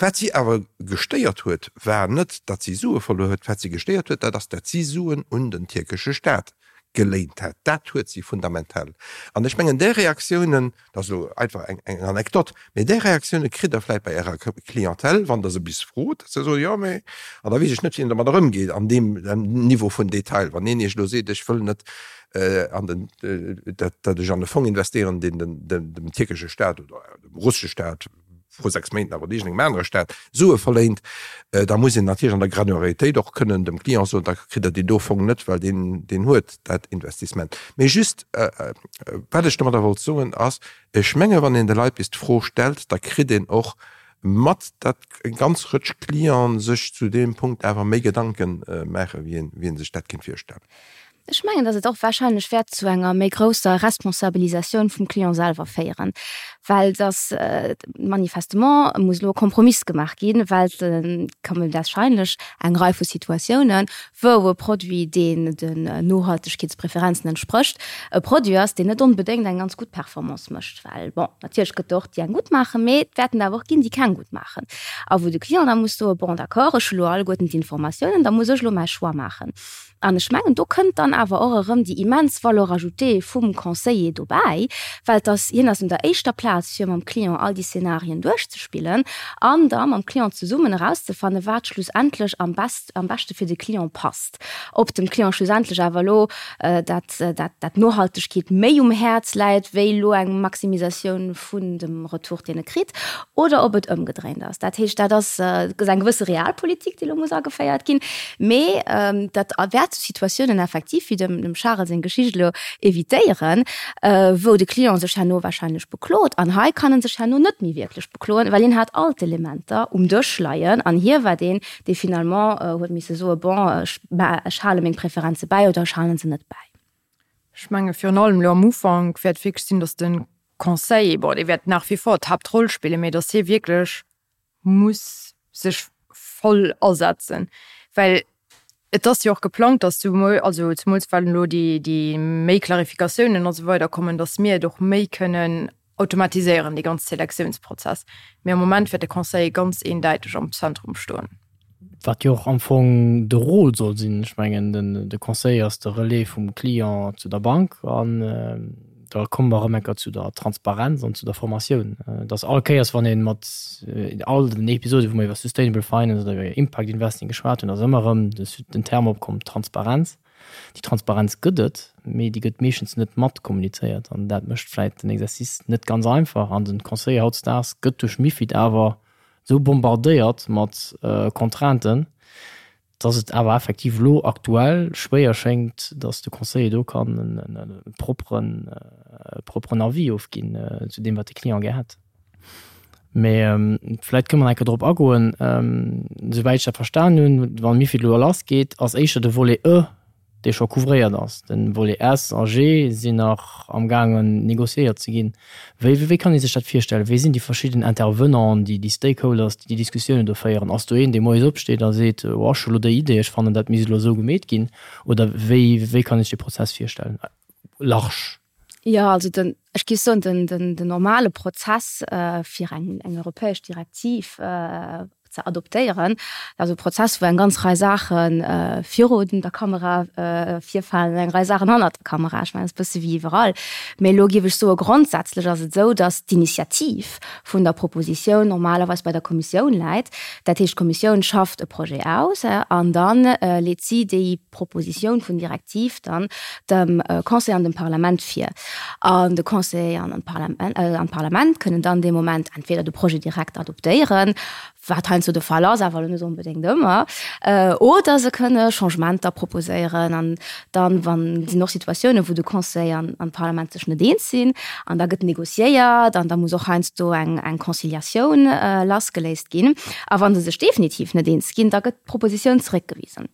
S4: Wat si awer gestéiert huet, war net, datt si Sue verluer huet, wat si gestéiert huet, dat ass, datt si Suen un den tierkesche Staat geléint hat. Dat huet si fundamental. An ech mengen, där Reaktiounen, dat ass elo einfach eng Anekdot, mee där Reaktioune kritt Der vläicht bei Ärer Clientèle, wann Der se bis frot, dass se soen, jo, mee, an da weess ech net, wéi een domadder ëmgeet an deem Niveau vun Detail. Wann een Iech elo seet, ech wëll net an den, dat ech an e Fong investéieren, deen dem tierkesche Staat oder dem russesche Staat, vru 6 Méint awer iergendengem anere Staat Sue verléint, da muss een natierlech an der Granularitéit och kënnen dem Client soen, da kritt Der deen do Fong net, well deen, deen huet dat Investissement. Mee just, wat ech domadder wollt soen, ass, ech menge wann een de Leit bis d'Fro stellt, da kritt een och mat, datt eng ganz Rëtsch Clienten sech zu deem Punkt awer méi Gedanke maachen, wéi een, wéi ee sech dat kéint virstellen.
S3: Ech mengen, datt et och wahrscheinlech wäert zu enger méi grousser Responsabilisatioun vum Client selwer féieren, well datt manifestement muss elo e Kompromiss gemaach ginn, well et kommen wahrscheinlech eng Rei vu Situatiounen, wou e Produit, deen den Nohaltegkeetspräferenzen entsprécht, e Produit ass, deen net onbedéngt eng ganz gutt Performance mécht, well, bon, natierlech gëtt et och déi eng gutt maachen, mee et wäerten der awer och ginn, déi keng gutt maachen a wou de Client da muss soen, bon, d'accord, ech hu lo alleguerten d'Informatiounen, da muss ech elo mäi Choix maachen. An ech mengen, do kënnt dann. awer och erëm déi immens Valeur ajoutée vum Conseiller dobäi, well et ass, hien ass un der éischter Plaz fir mam Client all déi Szenarien duerchzespillen an da mam Client zesummen erauszefannen, wat schlussendlech am best, am beschte fir de Client passt. Ob dem Client schlussendlech awer elo dat, dat, dat Nohaltegkeet méi um Häerz läit wéi elo eng Maximisatioun vun dem Retour, deen e kritt, oder ob et ëmgedréint ass. Dat heescht, dat ass eng gewësse Realpolitik, déi elo muss ageféiert ginn. Mee dat wäert sou Situatiounen effektiv, wéi dem Charel seng Geschicht elo, evitéieren, wou de Client sech herno wahrscheinlech beklot. An hei kann en sech herno net méi wierklech bekloen, well hien hat all d'Elementer um Dësch leien an hie war deen, dee finalement huet misse soen, bon, ech hale meng Preferenze bäi oder ech hale se net bäi.
S5: Ech menge virun allem elo am Ufank wäert wierklech sinn, datt de Conseiller, bon, dee wäert nach wie vor d'Haaptroll spillen, mee datt hie wierklech muss sech voll asetzen, well et ass jo och geplangt, datt souwuel, also zemools well elo déi, déi méi Klarifikatiounen a sou weider kommen, datt mir et och méi kënnen automatiséieren, dee ganz Selektiounsprozess. Mee am Moment wäert de Conseiller ganz eendäiteg am Zentrum stoen.
S1: Wat jo och am Fong de Rôle soll sinn. Ech mengen, de Conseiller ass de Relais vum Client zu der Bank. An da komme mer erëm eng Kéier zu der Transparenz an zu der Formatioun. Dass all Kéiers, wann ee mat all den Episode, wou mer iwwer Sustainable Finance oder iwwer Impact Investing geschwat hunn, ass ëmmer erëm den Term opkomm, Transparenz. Déi Transparenz gëtt et, mee déi gëtt meeschtens net mat kommunizéiert an dat mécht vläit den Exercice net ganz einfach. An den Conseiller hautdesdaags gëtt duerch MiFID awer esou bombardéiert mat Contrainten, dass et awer effektiv elo aktuell schwéier schéngt, dass de Conseiller do kann e propperen, propperen Avis ofginn zu deem, wat de Client gär hätt. Mee vläit kënne mer nach eng Kéier drop agoen. Souwäit ech dat verstan hunn, wann MiFID elo lassgeet, ass éischter de Volet E, dee scho couvréiert ass. De Volet S a G sinn nach amgaangen négociéiert ze ginn. Wéi, wéi kann ee sech dat virstellen? Wie sinn déi verschidden Intervenanten, déi, déi Stakeholders, déi déi Diskussiounen do féieren? Ass do een, dee moies opsteet a seet, oh, ech hu lo déi Idee, ech fannen, dat misst elo esou gemeet ginn? Oder wéi, wéi kann ee sech dee Prozess virstellen? Large.
S3: Jo, also den, ech géif soen, den, den, den normale Prozess, fir eng, eng europäesch Direktiv ze adoptéieren, dat ass e Prozess, wou eng ganz Rei Saache virun der Kamera virfalen an eng Rei Saachen hannert der Kamera. Ech mengen, dat ass e bësse wéi iwwerall. Mee elo géif ech soen, grondsätzlech ass et esou, datt d'Initiativ vun der Propositioun normalerweis bei der Kommissioun läit. Dat heescht, d'Kommissioun schafft e Projet aus an da leet si déi Propositioun vun Direktiv dann dem Conseil an dem Parlament vir. An de Conseil an d'Parlament kënnen dann dee Moment entweder de Projet direkt adoptéieren, wat heiansdo de Fall ass, awer elo net onbedéngt ëmmer, oder se kënne Changementer proposéieren. An dann, wann sinn och Situatiounen, wou de Conseil an d'Parlament sech net eens sinn, an da gëtt négociéiert an da muss och heiansdo eng Conciliatioun lassgeléist ginn. A wa se sech definitiv net eens ginn, da gëtt d'Propositioun zeréckgewisen.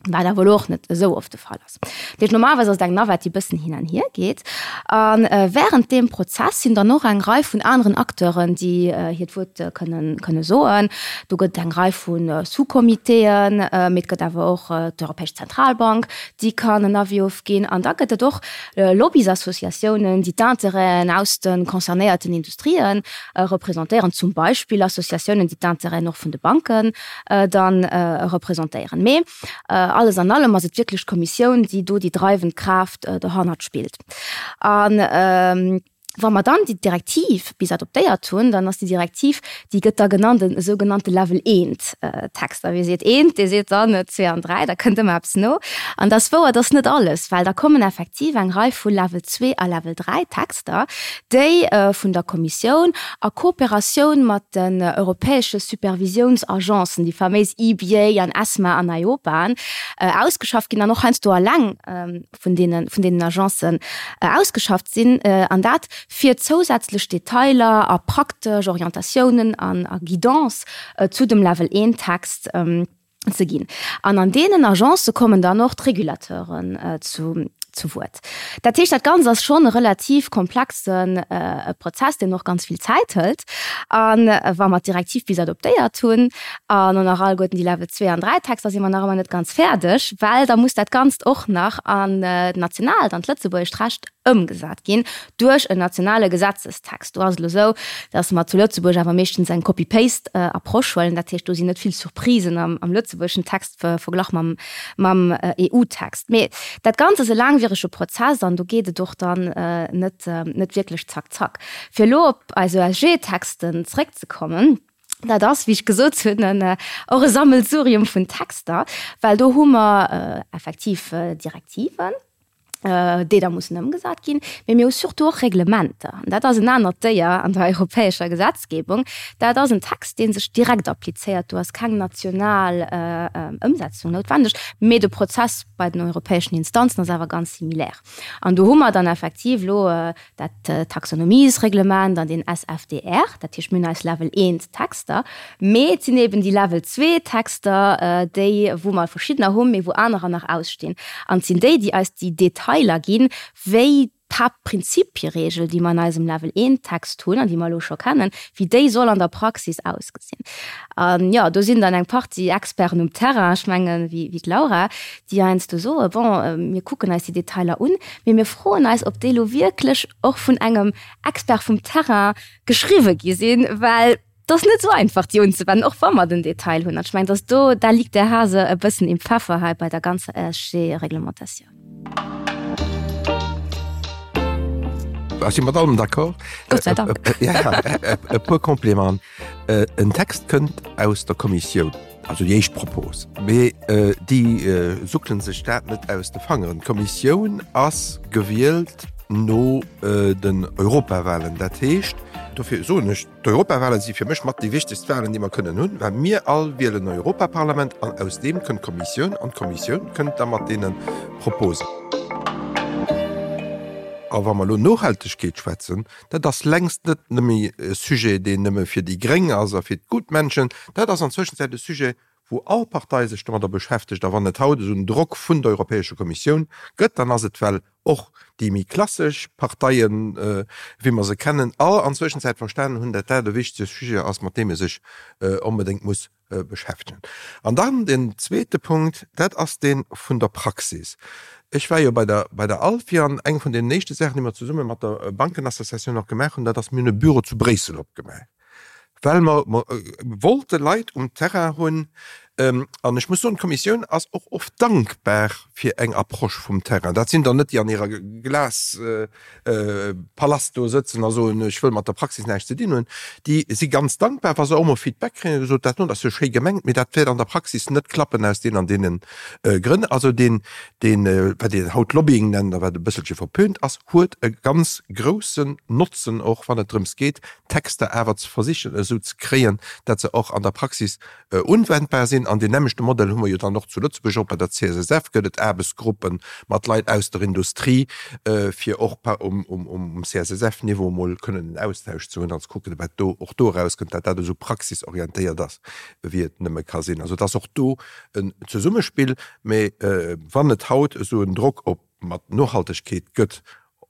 S3: Wat awer elo och net esou oft de Fall ass. Dat heescht, normalerweis ass et eng Navette, déi e bëssen hin an hier geet. A während deem Prozess sinn dann och eng Rei vun aneren Acteuren, déi hiert Wuert kënnen, kënne soen. Do gëtt et eng Rei vu Sous-Comitéen, mee et gëtt awer och d'Europäesch Zentralbank, déi kann en Avis ofginn. An da gëtt et och Lobbys-Associatiounen, déi d'Intérêten aus de concernéierten Industrien representéieren, zum Beispill Associatiounen, déi d'Intérêten och vun de Banken dann representéieren. Mee alles an allem ass et wierklech d'Kommissioun, déi do déi dreiwend Kraaft dohannert spillt. A wa mer dann déi Direktiv bis adoptéiert hunn, dann ass déi Direktiv, déi gëtt da genannt en sougenannte Level eent Text. A wie seet eent, dee seet dann zwee an dräi, da kënnt ëmmer eppes no. An dat ass wouer, dat ass net alles, well da kommen effektiv eng Rei vu Level zwee a Level dräi Texter, déi vun der Kommissioun a Kooperatioun mat den europäesche Supervisiounsagencen, déi faméis EBA an ESMA an EIOPA, ausgeschafft ginn an och heiansdo alleng vun deene vun deenen Agencen ausgeschafft sinn, an dat fir zousätzlech Detailer a praktesch Orientatiounen an a Guidance zu dem Level 1 Text ze ginn. An an deenen Agencë kommen dann och d'Régulateuren zu zu Wuert. Dat heescht, dat Ganzt ass schonn e relativ komplexe Prozess, deen och ganz vill Zäit hëlt. A wa mer d'Direktiv bis adoptéiert hunn an och nach alleguerten déi Level 2 an 3 Texter, si mer nach ëmmer net ganz fäerdeg, well da muss dat Ganzt och nach an d'nationaalt, an d'lëtzebuergescht Recht. ëmgesat ginn duerch en nationale Gesetzestext. Do ass et elo esou, datt mer zu Lëtzebuerg awer meeschtens eng Copy-Paste-Approche huelen. Dat heescht, do sinn net vill Surprisen am lëtzebuergeschen Text verglach mam EU-Text. Mee dat Ganzt ass e laangwierege Prozess an do geet et och dann net wierklech zack zack. Fir elo op eis ESG-Texten zréckzekommen, Dat ass, wéi ech gesot hunn, och e Sammelsurium vun Texter, well do hu mer effektiv Direktiven, déi da mussen ëmgesat ginn, mee mir hu surtout och Reglementer. An dat ass en anert Déier an der europäescher Gesetzgebung. Dat ass en Text, dee sech direkt applizéiert. Do ass keng national Ëmsetzung noutwendeg, mee de Prozess bei den europäeschen Instanzen ass awer ganz similaire. An do hu mer dann effektiv elo dat Taxonomiesreglement an den SFDR, dat heescht mir hunn eis Level 1 Texter, mee et sinn eben déi Level 2 Texter, déi wou mer verschiddener hunn, mee wou anerer nach ausstinn. An et sinn déi, déi eis déi Detailer ginn, wéi d'Haaptprinzipieregel, déi mer an eisem Level 1 Text hunn an déi mer elo scho kennen, wéi déi soll an der Praxis ausgesinn. An jo, do sinn dann eng Partie Experten um Terrain, ech mengen, wéi d'Laura, déi heiansdo soen, bon, mir kucken eis déi Detailer un, mee mir froen eis, ob déi elo wierklech och vun engem Expert vum Terrain geschriwwe gi sinn, well et ass net esou einfach, déi unzewennen, och wa mer den Detail hunn. An ech mengen, dass do, da liegt der Hase e bëssen im Pfeffer hei bei der ganzer ESG-Reglementatioun.
S4: Ech si mat allem d'accord.
S3: Gott sei Dank.
S4: Ja, e puer Complémenten. En Text kënnt aus der Kommissioun, also déi éischt Propos, mee déi suckele sech dat net aus de Fangeren. D'Kommissioun ass gewielt no den Europawahlen. Dat heescht, dofir soen ech, d'Europawahlen si fir mech mat déi wichtegst Wahlen, déi mer kënnen hunn, well mir all wielen en Europaparlament an aus deem kënnt d'Kommissioun an d'Kommissioun kënnt da mat deene Proposen. A wa mer elo Nohaltegkeet schwätzen, Dat ass längst net nëmme e Sujet, deen nëmme fir déi Gréng ass a fir d'Gutmenschen. Dat ass an Zwëschenzäit e Sujet, wou all Partei sech domadder beschäftegt. A wann et haut esou en Drock vun der Europäescher Kommissioun gëtt, dann ass et, well och déi méi klassesch Parteien, wéi mer se kennen, all an Zwëschenzäit verstanen hunn, dat dat e wichtege Sujet ass, mat deem ee sech onbedéngt muss beschäftegen. An dann den zweete Punkt, dat ass dee vun der Praxis. Ech war jo bei der, bei der ALFI an eng vun deenen éischte Saachen, déi mer zesumme mat der Bankenassociatioun och gemaach hunn, dat ass, mir hunn e Büro zu Bréissel opgemaach, well mer wollte Leit um Terrain hunn. An ech muss soen, d'Kommissioun ass och oft dankbar fir eng Approche vum Terrain. Dat sinn dann net déi an hirer Glas, Palast do sëtzen a soen, ech wëll mat der Praxis näischt ze dinn hunn, déi si ganz dankbar, wa se och mol Feedback kréien, gesot, dat do ass jo schéi gemengt, mee dat wäert an der Praxis net klappen aus deenen an deene Grënn. Also deen, deen, wat een haut Lobbying nennt a wat e bësselche verpönt ass, huet e ganz groussen Notzen och, wann et drëms geet, Texter awer ze versichen esou ze kréien, dat se och an der Praxis Unwendbar sinn. An deen nämmlechte Modell hu mer jo dann och zu Lëtzebuerg. Och bei der CSSF gëtt et Aarbechtsgruppe mat Leit aus der Industrie, fir och um CSSF-Niveau emol kënnen en Austausch ze hunn an ze kucken, wat do och do erauskënnt, dat dat esou praxisorientéiert ass, wéi et nëmme ka sinn. Also et ass och do en Zesummespill. Mä wann et haut esou en Drock op mat Nohaltegkeet gëtt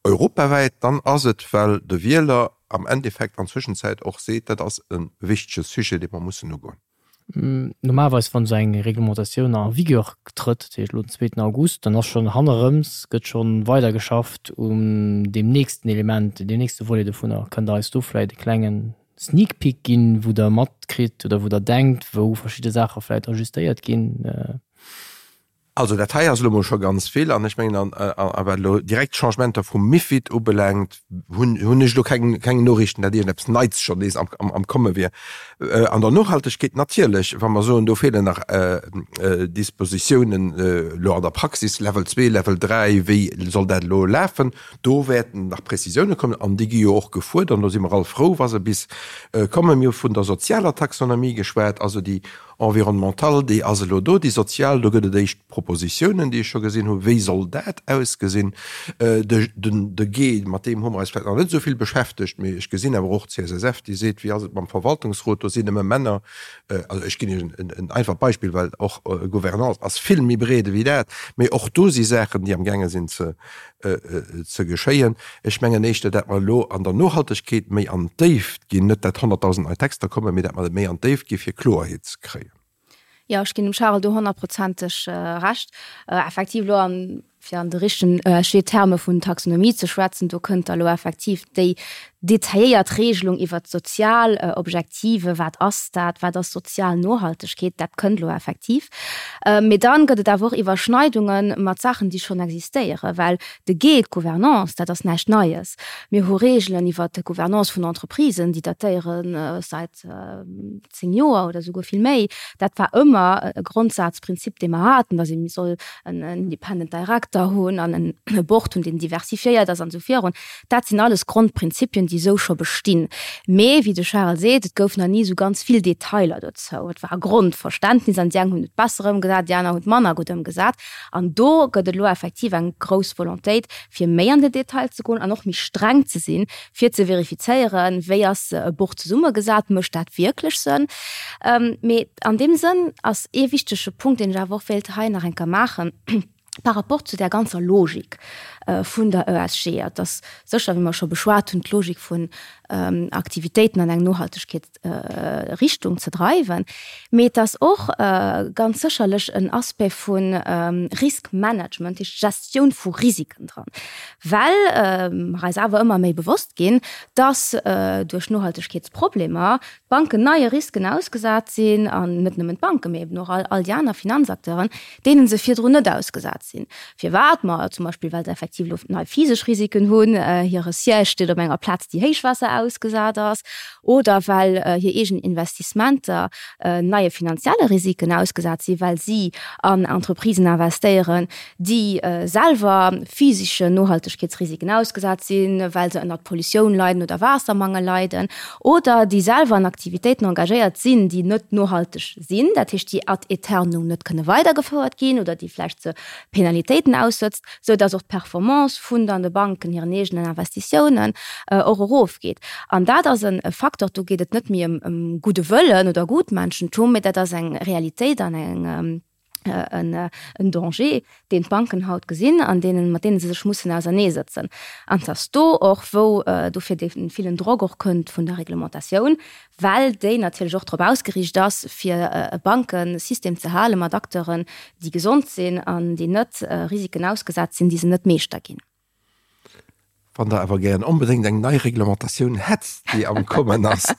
S4: europawäit, dann ass et, well de Wieler am Endeffekt an Zwëschenzäit och seet, dat ass e wichtege Sujet, dee mer mussen ugoen.
S1: Normalerweis, wann esou eng Reglementatioun en vigueur trëtt, dat heescht elo den zweeten August, dann ass schonn hannerëms, gëtt scho weidergeschafft un deem nächsten Element, deem nächste Volet dovunner. Kënnt Der eis do vläicht e klengen Sneak Peek ginn, wou Der matkritt oder wou Der denkt, wou verschidde Saache vläicht ajustéiert ginn?
S4: Also dat hei ass elo mol scho ganz vill an ech mengen, a wat elo direkt d'Changementer vum MiFID ubelaangt, hunn hunn ech elo keng keng Noriichten, datt iergendeppes Neits schonn nees am am Komme wier. An der Nohaltegkeet natierlech, wa mer soen, do feelen nach Dispositiounen elo an der Praxis, Level 2, Level 3, wéi soll dat elo lafen, do wäerten nach Prezisioune kommen an déi gi jo och gefuerdert an do si mer all frou, wa se bis kommen. Mir hu vun der sozialer Taxonomie geschwat, also déi Environnemental, déi ass elo do, déi sozial, do gëtt et éischt Propositiounen, déi ech scho gesinn hunn, wéi soll dat ausgesinn. De G, mat deem hu mer eis vläicht nach net esou vill beschäftegt, mee ech gesinn awer och d'CSSF, déi seet, wéi ass et mam Verwaltungsrot, do sinn nëmme Männer. Also ech ginn Iech en einfacht Beispill, well och Gouvernance ass vill méi breet ewéi dat, mee och do si Saachen, déi amgaange sinn ze ze geschéien. Ech mengen éischter, dat mer elo an der Nohaltegkeet méi an d'Déift ginn, net dat 100.000 nei Texter kommen, mee dat mer méi an d'Déift gi fir Kloerheet ze kréien.
S3: Jo, ech ginn dem Charel do honnertprozenteg Recht. Effektiv elo an. Fir an de richtegen ESG-Terme vun Taxonomie ze schwätzen, do kënnt da lo effektiv déi detailléiert Regelung iwwert d'sozial Objektive, wat ass dat, wat ass sozial Nohaltegkeet, dat kënnt lo effektiv. Mee dann gëtt et awer och Iwwerschneidunge mat Saachen, déi schonn existéieren, well de G, d'Gouvernance, dat ass näischt Neies. Mir hu Regeln iwwert d'Gouvernance vun Entreprisen, déi datéiere säit 10 Joer oder souguer vill méi. Dat war ëmmer e Grondsazprinzip, dee mer haten, datt ee soll en Independent Director hunn an e Board hunn, deen diversifiéiert ass an esou virun. Dat sinn alles Grondprinzipien, déi esou scho bestinn. Mee wéi de Charel seet, et gouf nach ni esou ganz vill Detailer dozou. Et war e Grondverständnis an déi eng hunn et besser ëmgesat, déi aner hunn et manner gutt ëmgesat. An do gëtt et elo effektiv eng grouss Volontéit, fir méi an den Detail ze goen an och méi streng ze sinn, fir ze verifizéieren, wéi ass e Buch zesummegesat, mécht dat wierklech Sënn. Mee an deem Sënn ass ee wichtege Punkt, deen ech awer och wéilt hei nach eng Kéier maachen, par rapport zu där ganzer Logik vun der ESG, et ass sécher, wéi mer scho beschwat hunn, d'Logik vun Aktivitéiten an eng Nohaltegkeet, Richtung ze dreiwen, mee et ass och ganz sécherlech en Aspect vu Riskmanagement, dat heescht Gestioun vu Risiken dran, well mer eis awer ëmmer méi bewosst ginn, dass duerch Nohaltegkeetsproblemer d'Banken neie Risken ausgesat sinn, an net nëmmen d'Banken, mee eben och all déi aner Finanzacteuren, deene se virdrun net ausgesat sinn. Firwat? Ma zum Beispill, well se effektiv elo nei physesch Risiken hunn, hire Siège steet op enger Plaz, déi Héichwaasser ausgesat ass, oder well hir eegen Investissementer neie finanzielle Risiken ausgesat sinn, well si an Entreprisen investéieren, déi selwer physeschen Nohaltegkeetsrisiken ausgesat sinn, well se ënnert Pollutioun leiden oder Waassermangel leiden, oder déi selwer an Aktivitéiten engagéiert sinn, déi net nohalteg sinn, dat heescht, déi ad aeternum net kënne weidergefouert ginn oder déi vläicht ze Penalitéiten aussëtzt, sou dass och d'Performance vun dann de Banken hiren eegenen Investitiounen och erofgeet. An dat ass e Facteur, do geet et net méi ëm gudde Wëllen oder Gutmenschentum, mee dat ass eng Realitéit an eng, en Danger, deen d'Banken haut gesinn an deenen, mat deene se sech mussen auserneesëtzen. An et ass do och, wou dofir dee villen Drock och kënnt vun der Reglementatioun, well déi natierlech och drop ausgeriicht ass, fir e Bankesystem ze hale mat Acteuren, déi gesond sinn an déi net Risiken ausgesat sinn, déi se net meeschter ginn.
S4: Wann Der awer gären onbedéngt eng nei Reglementatioun hätt, déi am Kommen ass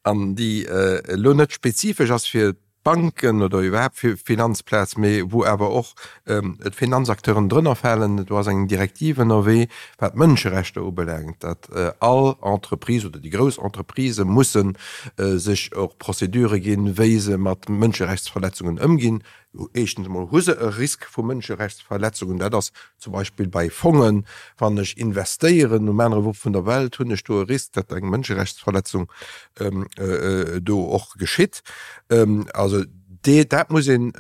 S4: an déi elo net spezifesch ass fir d'Banken oder iwwerhaapt fir d'Finanzplaz, mee wou awer och d'Finanzacteuren drënner falen, do ass eng Direktiv ënnerwee, wat d'Mënscherechter ubelaangt, datt all Entreprise oder déi grouss Entreprisë musse sech och Procédurë ginn, wéi se mat Mënscherechtsverletzungen ëmginn. Éischtens emol hu se e Risk vu Mënscherechtsverletzungen. Dat ass zum Beispill bei Fongen, wann ech investéieren um anere Wupp vun der Welt, hunn ech do e Risk, datt eng Mënscherechtsverletzung do och geschitt. Also dat muss een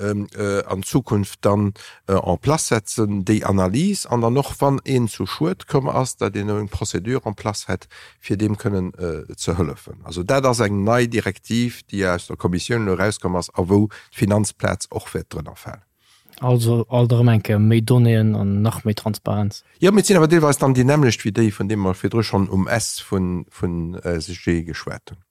S4: an Zukunft dann en place setzen, déi Analys, an dann och, wann een zu Schued komm ass, datt een eng Procédure en place hätt, fir deem kënnen ze hëllefen. Also dat ass eng nei Direktiv, déi aus der Kommissioun elo erauskomm ass a wou d'Finanzplaz och wäert drënner falen.
S1: Also alt erëm eng Kéier méi Donnéeën an nach méi Transparenz.
S4: Jo, mee et sinn awer deelweis dann déi nämmlecht wéi déi, vun deem mer virdru schonn um S vun ESG geschwat hunn.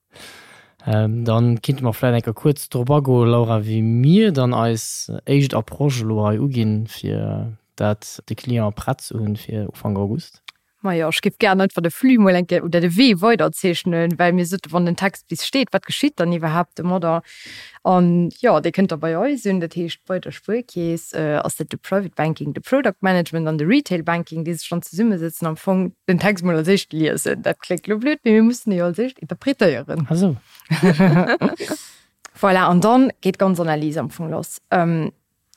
S1: Dann kinnte mer vläit eng Kéier kuerz drop agoen, Laura, wéi mir dann eis éischt Approche elo hei uginn, fir dat de Client prett ze hunn fir Ufank August.
S5: Majo, ech géif gären einfach de Flux mol eng Kéier oder de Wee weiderzeechnen, well mir soten, wann den Text bis steet, wat geschitt dann iwwerhaapt domadder? An jo, dee kënnt da bei eis un, dat heescht bei der Spuerkeess ass dat de Private Banking, de Product Management an de Retail Banking, déi sech dann zesummesëtzen, am Fong den Text mol als éischt liesen. Dat kléngt elo blöd, mee mir mussen e jo als éischt interpretéieren.
S1: Ah sou.
S5: Voilà, an dann geet d'ganz Analys am Fong lass.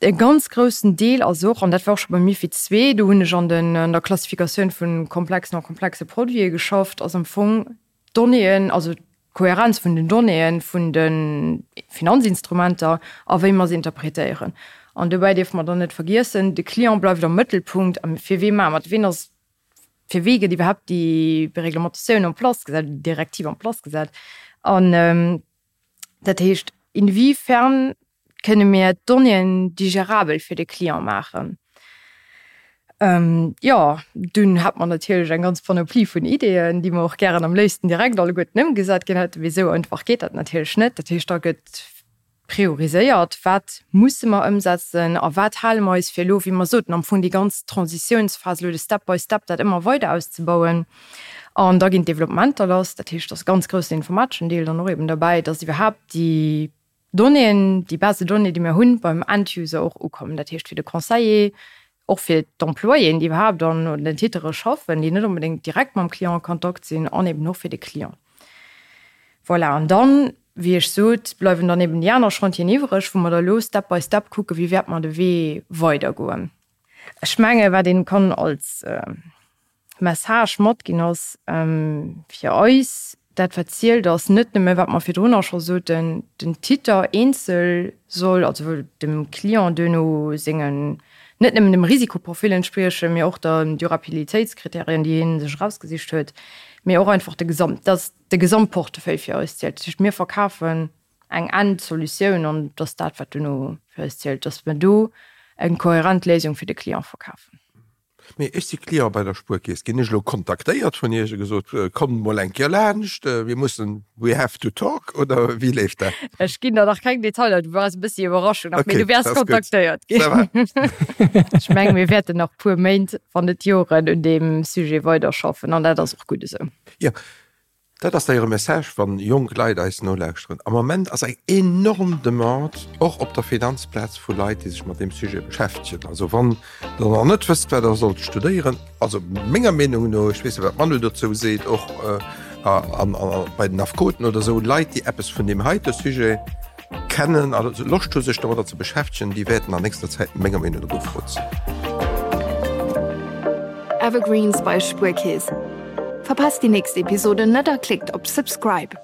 S5: E ganz groussen Deel ass och, an dat war och scho beim MiFID ii, do hunn ech an den, an der Klassifikatioun vu komplexen a komplexe Produite geschafft, ass am Fong d'Donnéeën, also d'Kohärenz vun den Donnéeën vun de Finanzinstrumenter a wéi mer se interpretéieren. An dobäi dierfe mer dann net vergiessen, de Client bleift am Mëttelpunkt. A fir wee maache mer et? Ween ass, fir wee gëtt iwwerhaapt déi Reglementatioun en place gesat, déi Direktiv en place gesat? An dat heescht, inwiefern Kënne mir d'Donnéeën digerabel fir de Client maachen? Jo, dunn hat mer natierlech eng ganz Panoplie vun Ideeën, déi mer och gären am léifsten direkt alleguerten ëmgesat ginn hätten. Mee esou einfach geet dat natierlech net. Dat heescht, da gëtt. prioriséiert, wat musse mer ëmsetzen a wat hale mer eis fir elo, wéi mer soten, am Fong déi ganz Transitiounsphas elo de Step by Step dat ëmmer weider auszebauen. An da ginn d'Developpementer lass, dat heescht, et ass e ganz groussen informateschen Deel dann och eben derbäi, dass iwwerhaapt déi Donnéeën, déi Base de données, déi mir hunn, beim End-User och ukommen. Dat heescht fir de Conseiller, och fir d'Employéen, déi iwwerhaapt an den Titere schaffen, déi net onbedéngt direkt mam Client a Kontakt sinn, an eben och fir de Client. Voilà, an dann, wéi ech sot, bleiwen dann eben déi aner Chantieren iwwreg, wou mer da elo Step by Step kucken, wéi wäerte mer de Wee weidergoen. Ech menge wat ee kann als Message matginn ass fir eis, dat wat zielt ass net nëmme wat mer virdrunner scho soten, den Titer eenzel soll also dem Client duerno sengen, net nëmmen dem Risikoprofil entspriechen, mee och der Durabilitéitskriterien déi hie sech erausgesicht huet, mee och einfach de Gesamt, dass de Gesamtportefeuille fir eis zielt. Dat heescht mir verkafen eng Endsolutioun an et ass dat wat duerno fir eis zielt, dass mer do eng kohärent Léisung fir de Client verkafen.
S4: Mee ech si Client bei der Spuerkeess. Ginn ech elo kontaktéiert vun Iech a gesot, kommt mol eng Kéier laanscht, mir mussen, we have to talk, oder wéi leeft dat?
S5: Ech ginn der nach keng Detailer, du waars e bëssi Iwwerraschung nach, mee du wäers kontaktéiert ginn. Ça va. Ech mengen, mir wäerten nach puer Méint, wann net Joren, un deem Sujet weiderschaffen an dat ass och gutt esou.
S4: Jo, Dat ass d'ailleurs e Message, wann jonk Leit eis nolauschteren. Am Moment ass eng enorm Demande, och op der Finanzplaz, vu Leit, déi sech mat deem Sujet beschäftegen. Also wann Der nach net wësst, wat Der sollt studéieren, also menger Meenung no, ech weess net, wat d'Manu dozou seet, och bei den Affekoten oder esou, Leit, déi eppes vun deem heite Sujet kennen a Loscht hu sech domadder ze beschäftegen, déi wäerten an nächster Zäit menger Meenung no gefrot sinn.
S2: Evergreens bei Spuerkeess. Verpasst déi nächst Episode net a klickt op Subscribe.